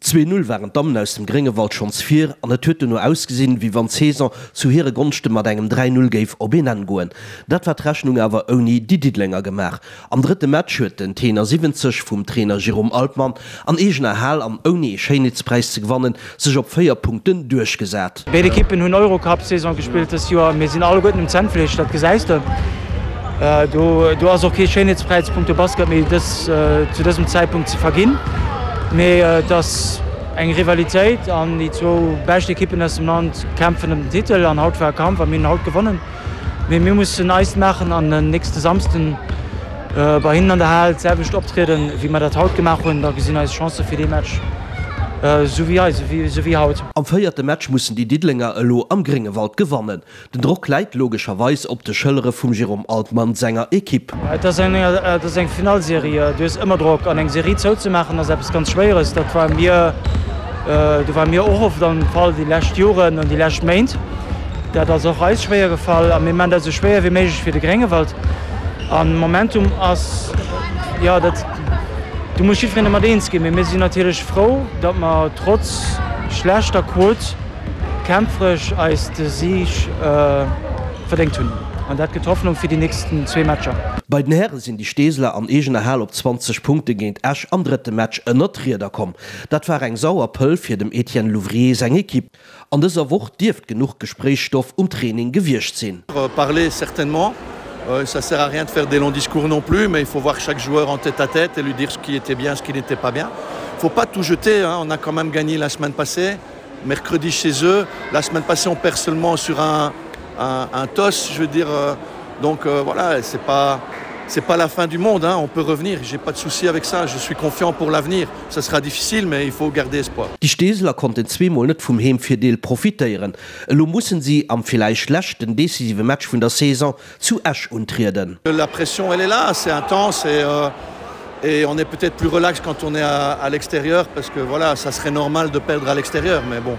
2, 0 waren d'Dammen aus dem Gréngewald schonns vir an et huet dono ausgesinn, wéi wann d'Saison zu hire Gonschte mat engem 3, 0 géif op een Enn goen. Dat war d'Rechnung awer ouni déi Diddelenger gemaach. Am drëtte Match huet den Tenor 70 vum Trainer Jérôme Altmann an eegener Hal an ouni ee Schéinheetspräis ze gewannen, sech op 4 Punkten duerchgesat. Béid Ekippen hunn Eurocup-Saison gespillt dëst Joer. Mir sinn alleguerten um Zännfleesch, dat gesäis de. Do do ass och kee Schéinheetspräis punkto Basket méi dës zu dësem Zäitpunkt ze verginn. Mee et ass eng Rivalitéit an déi zwou bescht Ekippen aus dem Land kämpfen ëm den Titel an haut war e Kampf a mir hunn haut gewonnen. Mee mir mussen eist maachen an den nächste Samsden bei hinnen an der Hal d'selwecht optrieden, wéi mer dat haut gemaach hunn. Da gesinn eis Chancë fir dee Match esou wéi eis, esou wéi haut. Am véierte Match mussen déi Diddelenger elo am Gréngewald gewannen. Den Drock läit logescherweis op de Schëllere vum Jérôme Altmann senger Ekipp. Et ass eng, et ass eng Finallserie. Du hues ëmmer Drock. An eng Serie zouzemaachen ass eppes ganz Schwéieres. Dat war mir, do ware mir och oft am Fall déi lescht Joren an déi lescht Méint. Dat ass och eis schwéier gefall a mir maachen dat esou schwéier wéi méiglech fir de Gréngewald. An Momentum ass, jo, dat, do muss jiddwereen domat eens ginn. Mee mir sinn natierlech frou, datt mer trotz schlechter Quot kämpferesch eis de Sig verdéngt hunn. An dat gëtt Hoffnung fir déi nächsten zwee Matcher. Bei den Häre sinn déi Steeseler an eegener Hal op 20 Punkte géint Esch am drëtte Match ënnert d'Rieder komm. Dat war eng sauer Pëll fir dem Etienne Louvrier seng Ekipp. An dëser Woch dierft genuch Gespréichsstoff um Training gewiescht sinn. Parler certainement, ça sert à rien de faire des longs discours non plus, mais il faut voir chaque joueur en tête à tête et lui dire ce qui était bien, ce qui n'était pas bien. Faut pas tout jeter, hein, on a quand même gagné la semaine passée, mercredi chez eux, la semaine passée on perd seulement sur un, un, un toss, je veux dire euh, donc euh, voilà, c'est pas c'est pas la fin du monde hein, on peut revenir, j'ai pas de souci avec ça, je suis confiant pour l'avenir ça sera difficile mais il faut garder espoir. Déi Steeseler konnten zweemol net vum Heemvirdeel profitéieren. Elo mussen si am villäicht leschten decisive Match vun der Saison zu Esch untrieden. La pression elle est là, c'est intense et euh, et on est peut-être plus relax quand on est à, à l'extérieur parce que voilà, ça serait normal de perdre à l'extérieur mais bon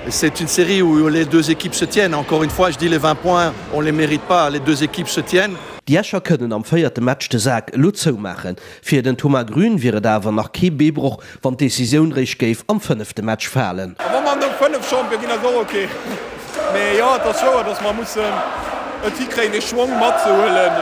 c'est une série où les deux équipes se tiennent. Encore une fois, je dis les 20 points, on les mérite pas, les deux équipes se tiennent. Déi Escher kënnen am véierte Match de Sak elo zoumaachen. Fir den Thomas Grün wier et awer nach kee Beebroch, wann d'Decisioun réischt géif am fënnefte Match falen. A wa mer no 5 Champion ginn, ass och ok. Mee jo, et ass wouer, datt mer mussen et hikréien, dee Schwong matzehuelen,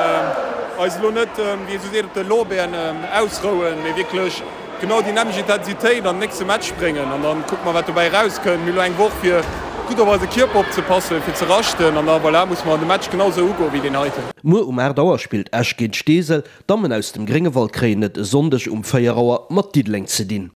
eis elo net, wéi ee sou seet, op de Lorbeeren ausrouen, mee wierklech genau déi nämmlecht Intensitéit an den nächste Match bréngen. An da kucke mer, wat dobäi erauskënnt. Mir hu elo eng Woch, fir gutt op eise Kierper opzepassen, fir ze raschten. An da, voilà, musse mer de Match genau sou ugoen, wéi deen heiten. Muer um 8 Auer spillt Esch géint Steesel. D'Dammen aus dem Gréngewald kréien et e Sonndeg um 4 Auer mat Diddeleng ze dinn.